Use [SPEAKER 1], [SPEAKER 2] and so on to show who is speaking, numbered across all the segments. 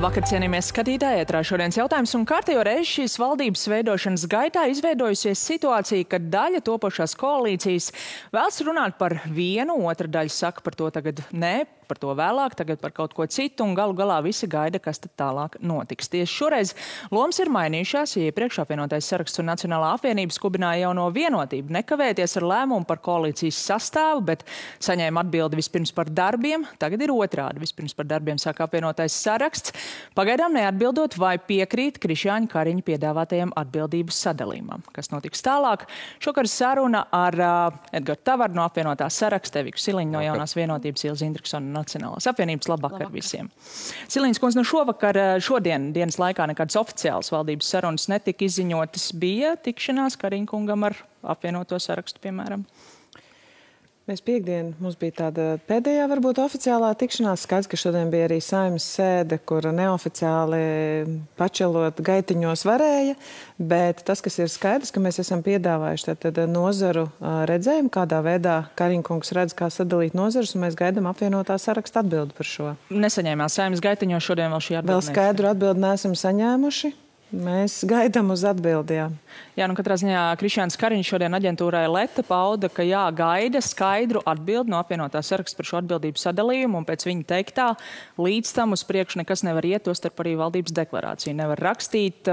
[SPEAKER 1] Labvakar, cienījamies skatītāji, ētrā šodienas jautājums un kārtējo reizi šīs valdības veidošanas gaitā izveidojusies situācija, kad daļa topošās koalīcijas vēlas runāt par vienu, otra daļa saka par to tagad nē, par to vēlāk, tagad par kaut ko citu, un galu galā visi gaida, kas tad tālāk notiks. Tieši šoreiz lomas ir mainījušās, ja iepriekš apvienotais saraksts un Nacionālā apvienība skubināja jauno vienotību nekavēties ar lēmumu par koalīcijas sastāvu, bet saņēma atbildi vispirms par darbiem, tagad ir otrādi. Vispirms par darbiem saka apvienotais saraksts, pagaidām neatbildot, vai piekrīt Krišjāņa Kariņa piedāvātajam atbildības sadalījumam. Kas notiks tālāk? Šokar saruna ar Edgars Tavaru no apvienotā saraksta, Eviku Siliņu no jaunās vienotības, Ilzi Indriksonu Nacionālās apvienības. Labvakar visiem. Silīņas kundze, šodien dienas laikā nekādas oficiālas valdības sarunas netika izziņotas. Bija tikšanās Kariņa kungam ar apvienoto sarakstu, piemēram?
[SPEAKER 2] Mēs piekdien, mums bija tāda pēdējā varbūt oficiālā tikšanās. Skaidrs, ka šodien bija arī Saeimas sēde, kur neoficiāli pačelot gaitiņos varēja, bet tas, kas ir skaidrs, ka mēs esam piedāvājuši tad nozaru redzējumu, kādā veidā Kariņa kungs redz, kā sadalīt nozarus, un mēs gaidām apvienotā saraksta atbildi par šo.
[SPEAKER 1] Nesaņēmās Saeimas gaitiņos šodien vēl šī atbildi?
[SPEAKER 2] Vēl skaidru atbildi neesam saņēmuši. Mēs gaidām uz atbildījām.
[SPEAKER 1] Jā, katrā ziņā Krišjāns Kariņš šodien aģentūrai Leta pauda, ka gaida skaidru atbildi no apvienotā saraksta par šo atbildību sadalījumu, un pēc viņa teiktā līdz tam uz priekšu nekas nevar iet, tostarp arī valdības deklarāciju nevar rakstīt.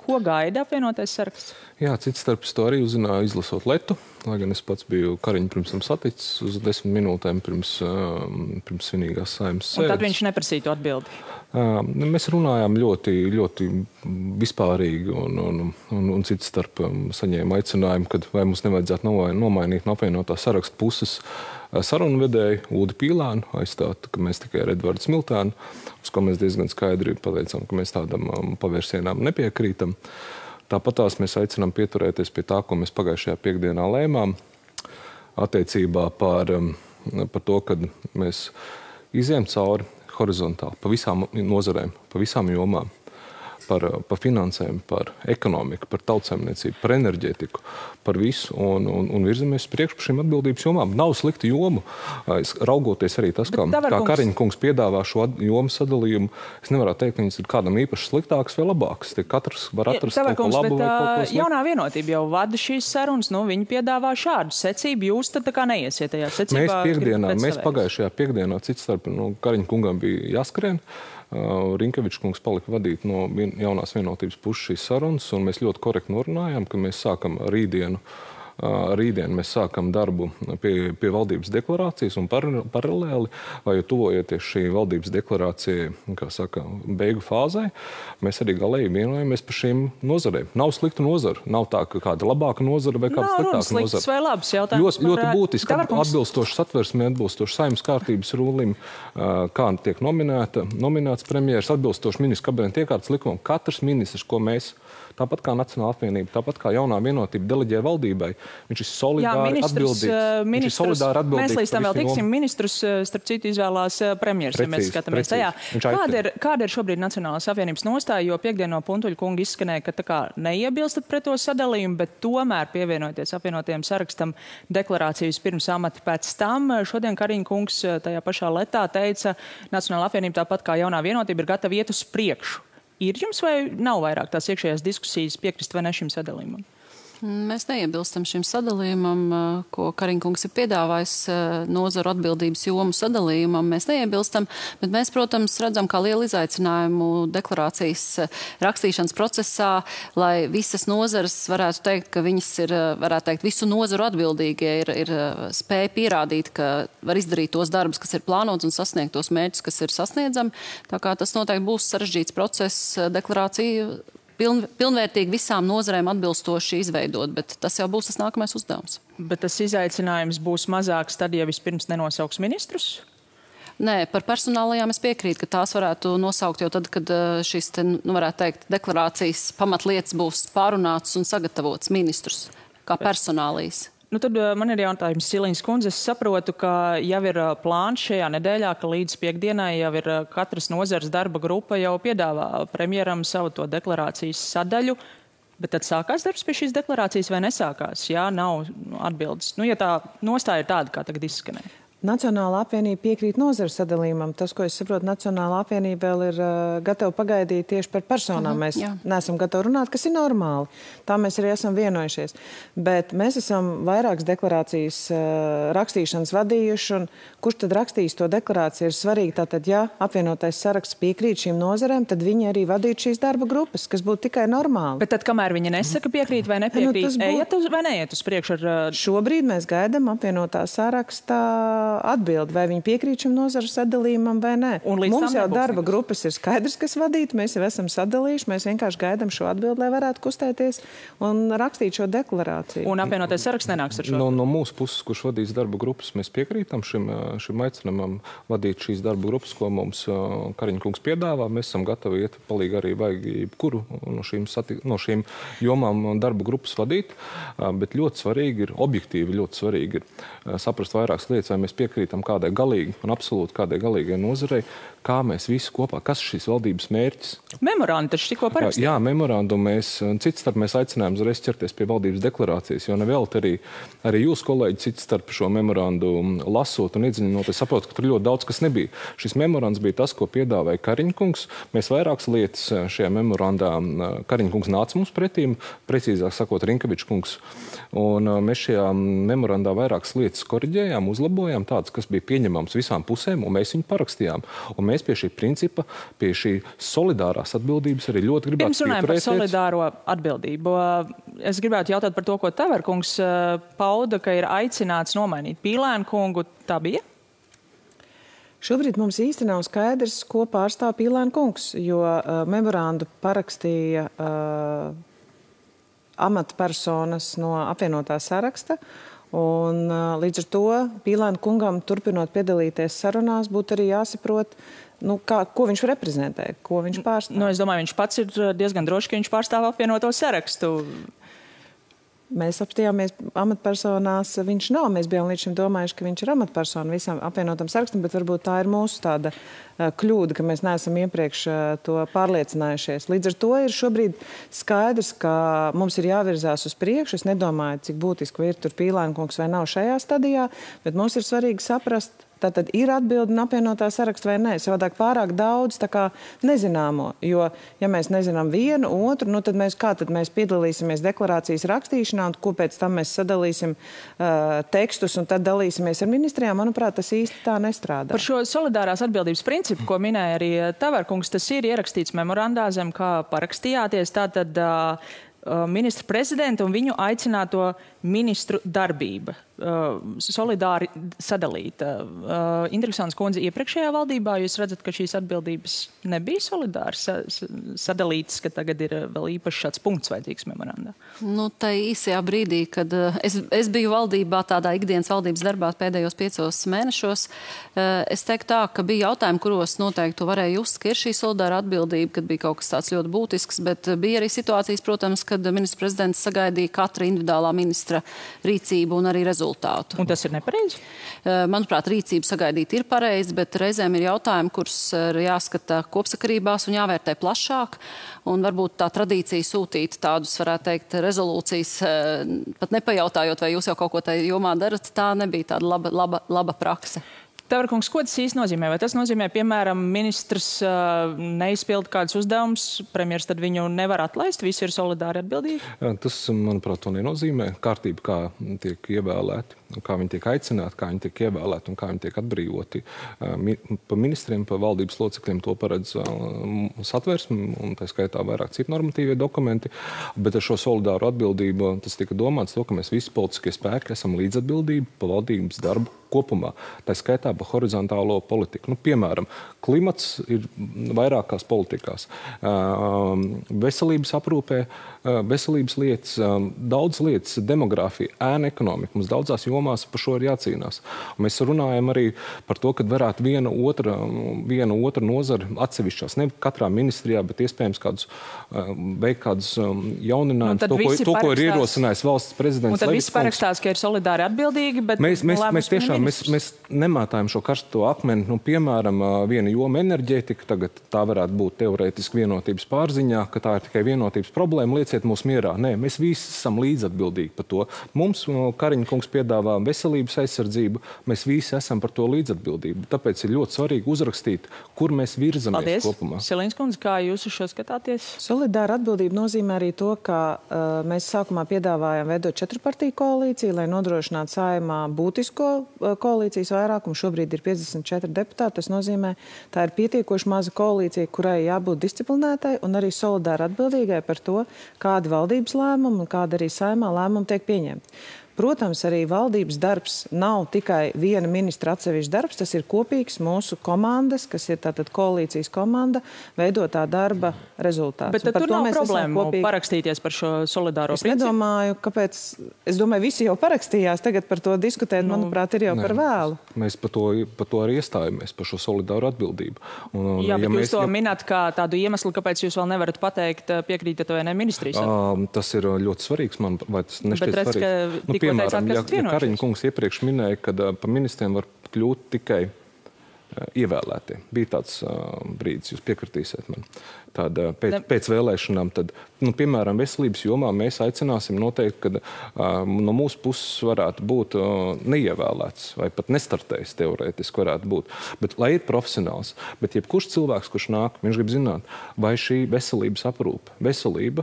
[SPEAKER 1] Ko gaida apvienotais saraksts?
[SPEAKER 3] Jā, cits starps to arī uzzināja izlasot Letu, lai gan es pats biju Kariņu pirms tam saticis uz 10 minūtēm pirms svinīgās Saeimas sēdes.
[SPEAKER 1] Un tad viņš neprasīja to atbildi?
[SPEAKER 3] Mēs runājām ļoti vispārīgi un cits starp saņēma aicinājumu, kad vai mums nevajadzētu nomainīt no apvienotā saraksta puses sarunvedēju Uldi Pīlānu, aizstāt, ka mēs tikai ar Edvardu Smiltēnu, uz ko mēs diezgan skaidri pateicām, ka mēs tādam pavērsienām nepiekrītam. Tāpatās mēs aicinām pieturēties pie tā, ko mēs pagājušajā piekdienā lēmām, attiecībā par to, kad mēs izējam cauri horizontāli pa visām nozarēm, pa visām jomām, par finansēm, par ekonomiku, par tautsaimniecību, par enerģētiku, par visu un virzamies priekš par šīm atbildības jomām. Nav slikti jomu, raugoties arī tas, kā Kariņa kungs piedāvā šo jomu sadalījumu. Es nevaru teikt, ka viņas ir kādam īpaši sliktāks vai labāks. Katrs var atrast kaut ko labu vai kaut ko sliktu.
[SPEAKER 1] Jaunā vienotība jau vada šīs sarunas, viņi piedāvā šādu secību. Jūs tad tā kā neiesiet tajā secībā?
[SPEAKER 3] Mēs pagājušajā piekdienā cits starp Kariņa kungam bija jāskrien. Rinkevičs kungs palika vadīt no jaunās vienotības puses šīs sarunas, un mēs ļoti korekti norunājām, ka mēs sākam rītdien mēs sākam darbu pie valdības deklarācijas un paralēli, vai tuvojoties šī valdības deklarācija, kā saka, beigu fāzē, mēs arī galēji vienojamies par šīm nozarēm. Nav sliktu nozaru. Nav tā, ka kāda labāka nozara vai kāda sliktāka nozara.
[SPEAKER 1] Vai labs jautājums?
[SPEAKER 3] Ļoti būtiski, atbilstoši satversmē, atbilstoši Saeimas kārtības rūlim, kā tiek nominēts premjeras, atbilstoši ministru kabineta iekārtas likumam. Katrs ministrs, ko mēs, tāpat kā Nacionālā apvienība, tāpat kā jaunā vienotība deleģē valdībai, viņš ir solidāri atbildīgs.
[SPEAKER 1] Mēs līdz tam vēl tiksim. Ministrus, starp citu, izvēlās premjeras, ja mēs skatāmies tajā. Kāda ir šobrīd Nacionālās apvienības nostāja, jo piekdien no Puntuļa kunga izskanēja, ka tā kā neiebilstat pret to sadalījumu, bet tomēr pievienoties apvienotajam sarakstam deklarācijas pirms amata pēc tam. Šodien Kariņa kungs tajā pašā Letā teica, Nacionālā apvienība tāpat kā jaunā vienotība ir gatava iet uz priekšu. Ir jums vai nav vairāk tās iekšējās diskusijas piekrist vai ne šim sadalījumam?
[SPEAKER 4] Mēs neiebilstam šim sadalījumam, ko Kariņa kungs ir piedāvājis nozaru atbildības jomu sadalījumam. Mēs neiebilstam, bet mēs, protams, redzam kā lielu izaicinājumu deklarācijas rakstīšanas procesā, lai visas nozares varētu teikt, ka viņas ir, varētu teikt, visu nozaru atbildīgie ir spēja pierādīt, ka var izdarīt tos darbus, kas ir plānots un sasniegt tos mērķus, kas ir sasniedzami. Tā kā tas noteikti būs sarežģīts process deklarāciju pilnvērtīgi visām nozarēm atbilstoši izveidot, bet tas jau būs tas nākamais uzdevums. Bet
[SPEAKER 1] tas izaicinājums būs mazāks tad, ja vispirms nenosauks ministrus?
[SPEAKER 4] Nē, par personālajām es piekrītu, ka tās varētu nosaukt jau tad, kad šīs, varētu teikt, deklarācijas pamatlietas būs pārunātas un sagatavotas ministrus kā personālijas.
[SPEAKER 1] Tad man ir jautājums, Silīņas kundze. Es saprotu, ka jau ir plāns šajā nedēļā, ka līdz piekdienai jau ir katras nozares darba grupa jau piedāvā premjeram savu to deklarācijas sadaļu. Bet tad sākās darbs pie šīs deklarācijas vai nesākās? Jā, nav atbildes. Ja tā nostāja ir tāda, kā tagad izskanēja.
[SPEAKER 2] Nacionālā apvienība piekrīt nozaru sadalījumam. Tas, ko es saprotu, Nacionālā apvienība vēl ir gatava pagaidīt tieši par personām. Mēs neesam gatavi runāt, kas ir normāli. Tā mēs arī esam vienojušies. Bet mēs esam vairākas deklarācijas rakstīšanas vadījuši, un kurš tad rakstīs to deklarāciju ir svarīgi. Tātad, ja apvienotais saraksts piekrīt šīm nozarēm, tad viņi arī vadītu šīs darba grupas, kas būtu tikai normāli.
[SPEAKER 1] Bet tad, kamēr viņi nesaka piekrīt vai nepiekrīt, ejiet vai neiet uz priekšu ar...
[SPEAKER 2] Šobrīd mēs gaidām apvienotā sarakstā atbildi, vai viņi piekrīt šim nozaru sadalījumam vai nē. Mums jau darba grupas ir skaidrs, kas vadīt, mēs jau esam sadalījuši, mēs vienkārši gaidām šo atbildi, lai varētu kustēties un rakstīt šo deklarāciju.
[SPEAKER 1] Un apvienotais saraksts nenāks ar šo?
[SPEAKER 3] No mūsu puses, kurš vadīs darba grupas, mēs piekrītam šim aicinājumam vadīt šīs darba grupas, ko mums Kariņa kungs piedāvā. Mēs esam gatavi iet palīgi arī vajag jebkuru no šīm jomām darba grupas vadīt, bet ļoti svarīgi ir, objektīvi ļoti svarīgi ir saprast vairākas lietas, vai mēs piekrītam kādai galīgi un absolūti kādai galīgai nozarei, kā mēs visi kopā, kas ir šīs valdības mērķis.
[SPEAKER 1] Memorandu taču tikko parakstīja.
[SPEAKER 3] Jā, memorandu cits starp mēs aicinājām uzreiz ķerties pie valdības deklarācijas, jo nevēl arī jūs, kolēģi, cits starp šo memorandu lasot un iedziļinoties, saprot, ka tur ļoti daudz kas nebija. Šis memorands bija tas, ko piedāvāja Kariņa kungs. Mēs vairākas lietas šajā memorandā Kariņa kungs nāca mums pretīm, precīzāk sakot, Rinkevičs kungs. Un mēs šajā memorandā vairākas lietas koriģējām, uzlabojām, tādas, kas bija pieņemams visām pusēm, un mēs viņu parakstījām. Un mēs pie šī principa, pie šī solidārās atbildības arī ļoti gribētu
[SPEAKER 1] pieturēties. Pirms runājam par solidāro atbildību. Es gribētu jautāt par to, ko Taverkungs pauda, ka ir aicināts nomainīt Pīlēnu kungu. Tā bija?
[SPEAKER 2] Šobrīd mums īsti nav skaidrs, ko pārstāv Pīlēnu kungs, jo memorandu parakstīja amatpersonas no apvienotā saraksta. Un līdz ar to Pīlēna kungam, turpinot piedalīties sarunās, būtu arī jāsaprot, ko viņš reprezentē, ko viņš pārstāv.
[SPEAKER 1] Es domāju, viņš pats ir diezgan droši, ka viņš pārstāv apvienoto sarakstu.
[SPEAKER 2] Mēs apstījāmies amatpersonās, viņš nav. Mēs bijām līdz šim domājuši, ka viņš ir amatpersona visam apvienotam sarakstam, bet varbūt tā ir mūsu tāda kļūda, ka mēs neesam iepriekš to pārliecinājušies. Līdz ar to ir šobrīd skaidrs, ka mums ir jāvirzās uz priekšu. Es nedomāju, cik būtiski ir tur Pīlēna kungs vai nav šajā stadijā, bet mums ir svarīgi saprast, tātad ir atbildi un apvienotā saraksta vai nē. Savādāk pārāk daudz tā kā nezināmo, jo, ja mēs nezinām vienu, otru, tad mēs piedalīsimies deklarācijas rakstīšanā un ko pēc tam mēs sadalīsim tekstus un tad dalīsimies ar ministrijām, manuprāt, tas īsti tā nestrādā.
[SPEAKER 1] Par šo solidārās atbildības principu, ko minēja arī Taverkungs, tas ir ierakstīts memorandā, zem kā parakstījāties, tātad ministra prezidenta un viņu aicināto ministru darbība. Solidāri sadalīta. Interesants kundze, iepriekšējā valdībā jūs redzat, ka šīs atbildības nebija solidāri sadalītas, ka tagad ir vēl īpaši šāds punkts vajadzīgs memorandā?
[SPEAKER 4] Tā īsajā brīdī, kad es biju valdībā, tādā ikdienas valdības darbā pēdējos 5 mēnešos, es teiktu tā, ka bija jautājumi, kuros noteikti varēja just, ka ir šī solidāra atbildība, kad bija kaut kas tāds ļoti būtisks, bet bija arī situācijas, protams, kad ministrs prezidents sagaidīja katra individuālā ministra rīcību un arī rezultātu.
[SPEAKER 1] Un tas ir nepareizi?
[SPEAKER 4] Manuprāt, rīcību sagaidīt ir pareizi, bet reizēm ir jautājumi, kurus ir jāskata kopsakarībās un jāvērtē plašāk. Un varbūt tā tradīcija sūtīt tādus, varētu teikt, rezolūcijas, pat nepajautājot, vai jūs jau kaut ko tajā jomā darat, tā nebija tāda laba prakse.
[SPEAKER 1] Taverkungs, ko tas īsti nozīmē? Vai tas nozīmē, piemēram, ministrs neizpilda kādus uzdevumus, premjers tad viņu nevar atlaist, visi ir solidāri atbildīgi?
[SPEAKER 3] Tas, manuprāt, to nenozīmē. Kārtība, kā tiek ievēlēti, kā viņi tiek aicināti, kā viņi tiek ievēlēti un kā viņi tiek atbrīvoti. Pa ministriem, pa valdības locekļiem to paredz satversme, un tā skaitā vairāk citu normatīvie dokumenti. Bet ar šo solidāru atbildību tas tika domāts to, ka mēs visi politiskie spēki esam līdzatbildību pa valdības darbu kopumā. Tā skaitā pa horizontālo politiku. Piemēram, klimats ir vairākās politikās. Veselības aprūpē, veselības lietas, daudz lietas, demogrāfija, ēna ekonomika. Mums daudzās jomās par šo ir jācīnās. Un mēs runājam arī par to, ka varētu viena otra nozara atsevišķās, ne katrā ministrijā, bet iespējams veikt kādus jauninājumus, to, ko ir ierosinājis valsts prezidents.
[SPEAKER 1] Un tad visi parakstās, ka ir solidāri atbildīgi, bet
[SPEAKER 3] mēs nemātājam šo karsto akmeni. Piemēram, viena joma enerģētika, tagad tā varētu būt teorētiski vienotības pārziņā, ka tā ir tikai vienotības problēma. Lieciet atstāsiet mūs mierā. Nē, mēs visi esam līdzatbildīgi par to. Mums Kariņa kungs piedāvā veselības aizsardzību, mēs visi esam par to līdzatbildību. Tāpēc ir ļoti svarīgi uzrakstīt, kur mēs virzamies kopumā.
[SPEAKER 1] Silīns kundze, kā jūs uz šo skatāties?
[SPEAKER 2] Solidāra atbildība nozīmē arī to, ka mēs sākumā piedāvājām veidot 4-partiju koalīciju, lai nodrošinātu Saeimā būtisko koalīcijas vairākumu. Šobrīd ir 54 deputāti. Tas nozīmē, tā ir pietiekoši maza koalīcija, kurai jābūt disciplinētai un arī solidāri atbildīgai par to, kādi valdības lēmumi un kāda arī Saeimā lēmumi tiek pieņemti. Protams, arī valdības darbs nav tikai viena ministra atsevišķs darbs, tas ir kopīgs mūsu komandas, kas ir tātad koalīcijas komanda, veidotā darba rezultāts.
[SPEAKER 1] Bet tad tur nav problēmu parakstīties par šo solidāro principu?
[SPEAKER 2] Es nedomāju, kāpēc. Es domāju, visi jau parakstījās, tagad par to diskutēt, manuprāt, ir jau par vēlu.
[SPEAKER 3] Mēs par to arī iestājamies, par šo solidāru atbildību.
[SPEAKER 1] Jā, bet jūs to minat kā tādu iemeslu, kāpēc jūs vēl nevarat pateikt, piekrītat vai ne ministrijas?
[SPEAKER 3] Tas ir ļoti svarīgs, man, vai tas nešķiet svarīgi? Piemēram, ja Kariņa kungs iepriekš minēja, ka par ministriem var kļūt tikai ievēlētie. Bija tāds brīdis, jūs piekritīsiet man. Tāda pēc vēlēšanām, tad, piemēram, veselības jomā mēs aicināsim noteikti, ka no mūsu puses varētu būt neievēlēts vai pat nestartējis teorētiski varētu būt. Bet, lai ir profesionāls, bet jebkurš cilvēks, kurš nāk, viņš grib zināt, vai šī veselības aprūpe, veselība,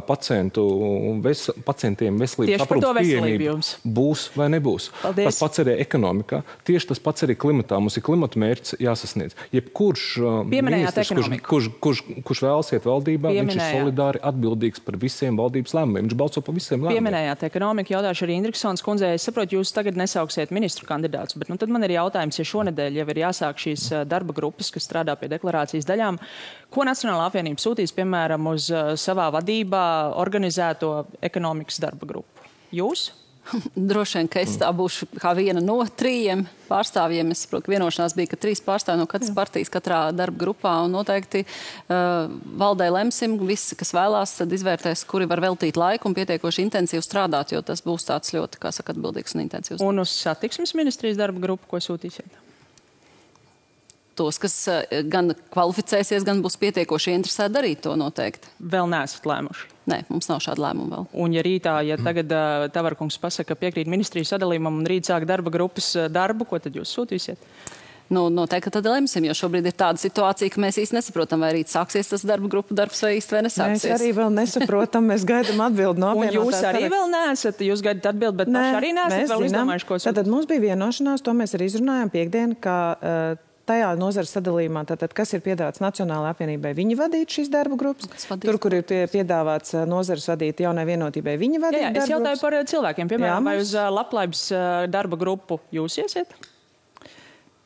[SPEAKER 3] pacientiem veselības aprūpes pieejamība būs vai nebūs.
[SPEAKER 1] Paldies.
[SPEAKER 3] Tas pats arī ekonomikā, tieši tas pats arī klimatā. Mums ir klimata mērķis jāsasniedz. Jebkurš ministrs, kurš vēlas iet valdībā, viņš ir solidāri atbildīgs par visiem valdības lēmumiem. Viņš balso par visiem lēmumiem.
[SPEAKER 1] Pieminējāt ekonomiku, jautāšu arī Indriksons kundzei. Es saprotu, jūs tagad nesauksiet ministru kandidātus, bet tad man ir jautājums, ja šonedēļ jau ir jāsāk šīs darba grupas, kas strādā pie deklarācijas daļām, ko Nacionālā apvienība sūtīs, piemēram, uz savā vadībā organizēto ekonomikas darba grupu? Jūs?
[SPEAKER 4] Droši vien, ka es tā būšu kā viena no 3 pārstāvjiem. Es saprotu, ka vienošanās bija, ka 3 pārstāvji no katras partijas katrā darba grupā, un noteikti valdē lemsim, visi, kas vēlās, tad izvērtēs, kuri var veltīt laiku un pietiekoši intensīvi strādāt, jo tas būs tāds ļoti, kā saka, atbildīgs un intensīvs.
[SPEAKER 1] Un uz satiksmes ministrijas darba grupu, ko sūtīsiet?
[SPEAKER 4] Tos, kas gan kvalificēsies, gan būs pietiekoši interesēti darīt to noteikti.
[SPEAKER 1] Vēl neesat lēmuši?
[SPEAKER 4] Nē, mums nav šāda lēmuma vēl.
[SPEAKER 1] Un ja rītā, ja tagad Tavarkungs pasaka, piekrīt ministrijas sadalījumam un rīt sāk darba grupas darbu, ko tad jūs sūtīsiet?
[SPEAKER 4] Noteikti, ka tad lemsim, jo šobrīd ir tāda situācija, ka mēs īsti nesaprotam, vai rīt sāksies tas darba grupu darbs vai īsti vai nesāksies.
[SPEAKER 2] Mēs arī vēl nesaprotam, mēs gaidām atbildi no apvienotās.
[SPEAKER 1] Un jūs arī vēl neesat, jūs gaidat atbildi, bet paši arī neesat vēl izdomājuši, ko sūtīt.
[SPEAKER 2] Tātad mums bija vienošanās, to mēs arī izrunājām piekdien, ka tajā nozares sadalījumā, tātad, kas ir piedāvāts Nacionālajai apvienībai, viņi vadīt šīs darba grupas. Tur, kur ir piedāvāts nozares vadīt jaunai vienotībai, viņi vadīt darba grupas.
[SPEAKER 1] Es jautāju par cilvēkiem, piemēram, vai uz labklājības darba grupu jūs iesiet?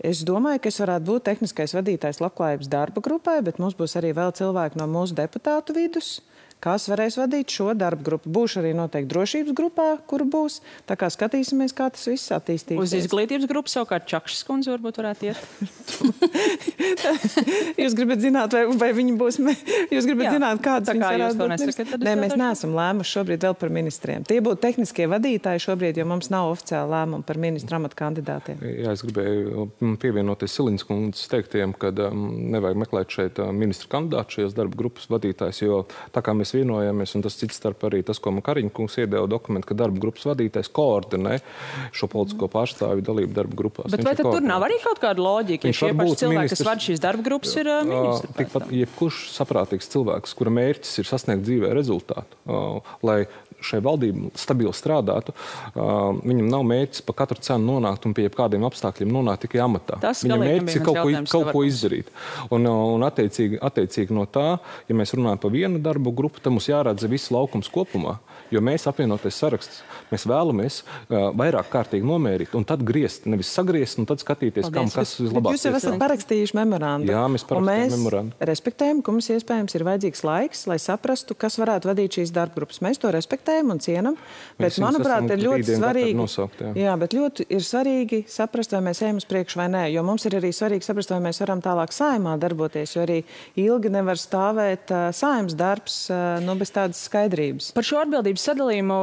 [SPEAKER 2] Es domāju, ka es varētu būt tehniskais vadītājs labklājības darba grupai, bet mums būs arī vēl cilvēki no mūsu deputātu vidus, kas varēs vadīt šo darba grupu. Būšu arī noteikti drošības grupā, kur būs. Tā kā skatīsimies, kā tas viss attīstīsies.
[SPEAKER 1] Uz izglītības grupu savukārt Čakšas kundze varbūt varētu iet.
[SPEAKER 2] Jūs gribat zināt, vai viņi būs... Jūs gribat zināt, kādas viņas varētu būt ministri? Nē, mēs neesam lēmuši šobrīd vēl par ministriem. Tie būtu tehniskie vadītāji šobrīd, jo mums nav oficiāla lēmuma par ministra amata kandidātiem.
[SPEAKER 3] Jā, es gribēju pievienoties Silīnas kundzes teiktiem, ka nevajag meklēt šeit ministra kandidātu šajās darba grupas vadītājs, jo tā kā mēs vienojamies, un tas cits starp arī tas, ko man Kariņa kungs iedeva dokumentu, ka darba grupas vadītājs koordinē šo politisko pārstāvju dalību darba grupās.
[SPEAKER 1] Bet vai tad tur nav arī kaut kāda loģika, ja šie paši cilvēki, kas vada šīs darba grupas, ir ministri?
[SPEAKER 3] Tikpat jebkurš saprātīgs cilvēks, kura mērķis ir sasniegt dzīvē rezultātu, lai šai valdība stabili strādātu, viņam nav mērķis pa katru cenu nonākt un pie kādiem apstākļiem nonākt tikai amatā. Viņam mērķis ir kaut ko izdarīt. Un attiecīgi no tā, ja mēs runājam par vienu darbu grupu, tad mums jāredz viss laukums kopumā, jo mēs apvienoties saraksts, mēs vēlamies vairāk kārtīgi nomērīt un tad griezt, nevis sagriezt un tad skatīties, kam kas vislabāk.
[SPEAKER 2] Jūs jau esat parakstījuši memorandu.
[SPEAKER 3] Jā, mēs parakstījām memorandu.
[SPEAKER 2] Respektējam, ka mums iespējams ir vajadzīgs laiks, lai saprastu, kas varētu vadīt šīs darba grupas. Mēs to respektējam. respektējam un cienam, bet, manuprāt, ir ļoti svarīgi, bet ļoti ir svarīgi saprast, vai mēs ejam uz priekšu vai nē, jo mums ir arī svarīgi saprast, vai mēs varam tālāk saimā darboties, jo arī ilgi nevar stāvēt saimas darbs, bez tādas skaidrības.
[SPEAKER 1] Par šo atbildības sadalījumu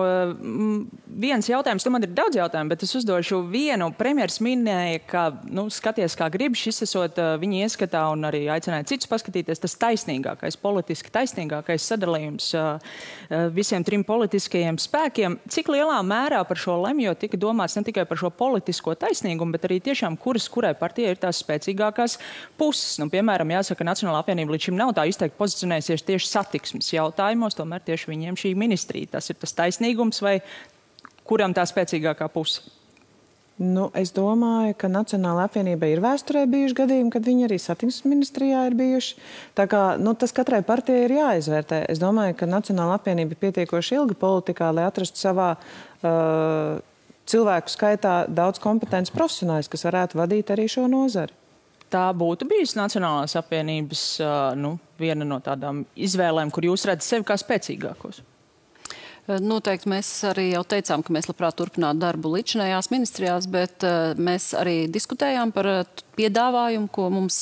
[SPEAKER 1] viens jautājums, man ir daudz jautājumu, bet es uzdošu vienu. Premjers minēja, ka, skaties, kā grib, šis esot viņa ieskatā un arī aicināja citus paskatīties, tas taisnīgākais, politiski taisnīgākais sadalījums visiem trim politiskajiem spēkiem. Cik lielā mērā par šo lemjot tika domāts ne tikai par šo politisko taisnīgumu, bet arī tiešām kurai partijai ir tās spēcīgākās puses. Piemēram, jāsaka, Nacionālā apvienība līdz šim nav tā izteikti pozicionējusies tieši satiksmes jautājumos, tomēr tieši viņiem šī ministrija. Tas ir tas taisnīgums vai kuram tā spēcīgākā puse?
[SPEAKER 2] Es domāju, ka Nacionālā apvienība ir vēsturē bijuši gadījumi, kad viņi arī satiksmes ministrijā ir bijuši. Tā kā, tas katrai partijai ir jāizvērtē. Es domāju, ka Nacionālā apvienība ir pietiekoši ilga politikā, lai atrastu savā cilvēku skaitā daudz kompetences profesionāļus, kas varētu vadīt arī šo nozari.
[SPEAKER 1] Tā būtu bijusi Nacionālās apvienības viena no tādām izvēlēm, kur jūs redzat sevi kā spēcīgākos?
[SPEAKER 4] Noteikti mēs arī jau teicām, ka mēs labprāt turpinātu darbu līdzinājās ministrijās, bet mēs arī diskutējām par piedāvājumu, ko mums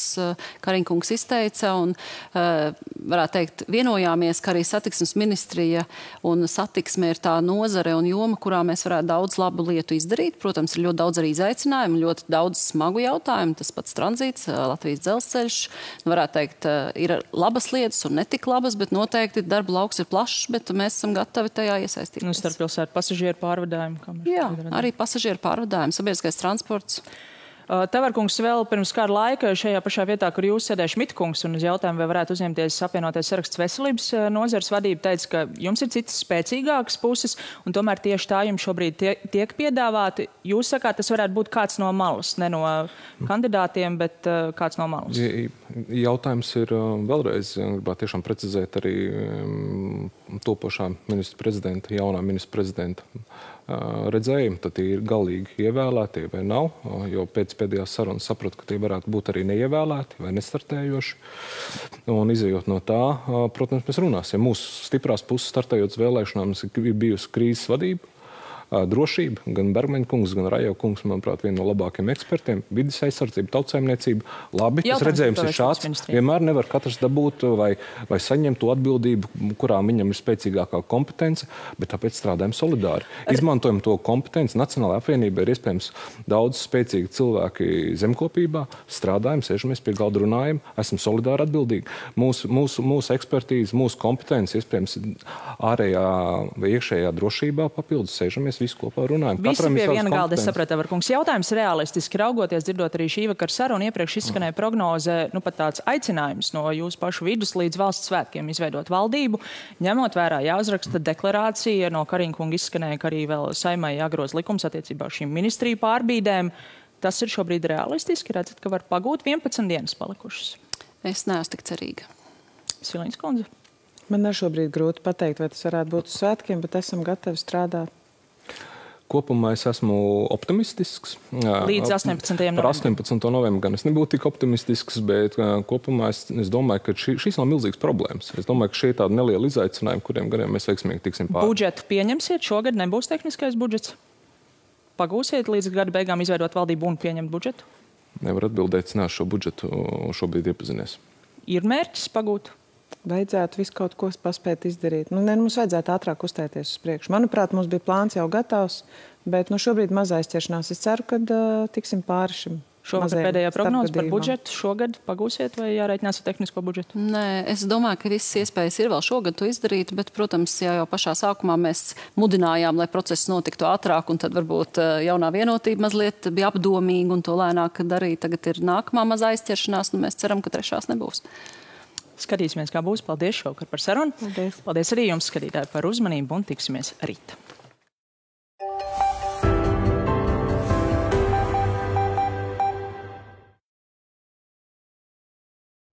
[SPEAKER 4] Kariņkungs izteica, un varētu teikt, vienojāmies, ka arī satiksmes ministrija un satiksme ir tā nozare un joma, kurā mēs varētu daudz labu lietu izdarīt. Protams, ir ļoti daudz arī izaicinājumu, ļoti daudz smagu jautājumu, tas pats tranzīts, Latvijas dzelzceļš. Varētu teikt, ir labas lietas un netik labas, bet noteikti darba lauks ir plašs, bet mēs esam gatavi tajā iesaistīties.
[SPEAKER 1] Starppilsētu pasažieru pārvadājumu.
[SPEAKER 4] Jā, arī pasažieru pārvadājumu, sabiedriskais transports.
[SPEAKER 1] Tavarkungs vēl pirms kāda laika šajā pašā vietā, kur jūs sēdēja Šmitkungs, un uz jautājumu, vai varētu uzņemties apvienotais saraksts veselības nozares vadība, teica, ka jums ir citas spēcīgākas puses, un tomēr tieši tā jums šobrīd tiek piedāvāti. Jūs sakāt, tas varētu būt kāds no malas, ne no kandidātiem, bet kāds no malas.
[SPEAKER 3] Jautājums ir vēlreiz, gribētu tiešām precizēt arī topošā ministra prezidenta, jaunā ministra prezidenta redzējumu, tad tie ir galīgi ievēlēti vai nav, jo pēc pēdējās sarunas sapratu, ka tie varētu būt arī neievēlēti vai nestartējoši. Un izejot no tā, protams, mēs runāsim. Mūsu stiprās puses startējot uz vēlēšanām ir bijusi krīzes vadība, drošība, gan Bergmaņa kungs, gan Rajo kungs, manuprāt, viena no labākajiem ekspertiem, vides aizsardzība, tautsaimniecība. Labi, tas redzējums ir šāds. Vienmēr nevar katrs dabūt vai saņemt to atbildību, kurā viņam ir spēcīgākā kompetence, bet tāpēc strādājam solidāri. Izmantojam to kompetenci. Nacionālajā apvienībā ir iespējams daudz spēcīgi cilvēki zemkopībā, strādājam, sēžamies pie galda, runājam, esam solidāri atbildīgi. Mūsu ekspertīze, mūsu kompetence, iespējams, ārējā vai iekšējā drošībā papildus sēžamies visu kopā runājam.
[SPEAKER 1] Visi pie viena galda, es sapratu, Tavarkungs. Jautājums realistiski raugoties, dzirdot arī šī vakara sarunu, iepriekš izskanēja prognoze, pat tāds aicinājums no jūsu pašu vidus līdz valsts svētkiem izveidot valdību. Ņemot vērā jāuzraksta deklarācija, no Kariņkunga izskanēja, ka arī vēl Saimai jāgroza likums attiecībā uz šīm ministriju pārbīdēm. Tas ir šobrīd realistiski, redzat, ka var pagūt 11 dienas palikušas.
[SPEAKER 4] Es neesmu tik cerīga.
[SPEAKER 1] Silīnas kundze.
[SPEAKER 2] Man ir šobrīd grūti pateikt, vai tas varētu būt uz svētkiem, bet esam gatavi strādāt.
[SPEAKER 3] Kopumā es esmu optimistisks.
[SPEAKER 1] Līdz 18. novembrim.
[SPEAKER 3] Par 18. novembrim gan es nebūtu tik optimistisks, bet kopumā es domāju, ka šīs nav milzīgas problēmas. Es domāju, ka šie ir tādi nelieli izaicinājumi, kuriem gadiem mēs veiksmīgi tiksim pāri.
[SPEAKER 1] Budžetu pieņemsiet? Šogad nebūs tehniskais budžets? Pagūsiet līdz gada beigām izveidot valdību un pieņemt budžetu?
[SPEAKER 3] Nevar atbildēt, es neesmu šo budžetu šobrīd iepazinies.
[SPEAKER 1] Ir mērķis pagūt?
[SPEAKER 2] Vajadzētu visu kaut ko paspēt izdarīt. Mums vajadzētu ātrāk uzstāties uz priekšu. Manuprāt, mums bija plāns jau gatavs, bet šobrīd maz aizķeršanās. Es ceru, ka tiksim pāri šim.
[SPEAKER 1] Šogad pēdējā prognoze par budžetu. Šogad pagūsiet vai jārēķinās ar tehnisko budžetu?
[SPEAKER 4] Nē, es domāju, ka visas iespējas ir vēl šogad to izdarīt, bet, protams, jau pašā sākumā mēs mudinājām, lai process notiktu ātrāk, un tad varbūt jaunā vienotība mazliet bija apdomīga un to lēnāk darīt. Tagad ir nākamā mazā aizķeršanās, un mēs ceram, ka trešās nebūs.
[SPEAKER 1] Skatīsimies, kā būs. Paldies šovakar par sarunu.
[SPEAKER 2] Paldies.
[SPEAKER 1] Paldies arī jums, skatītāji, par uzmanību un tiksimies rīt.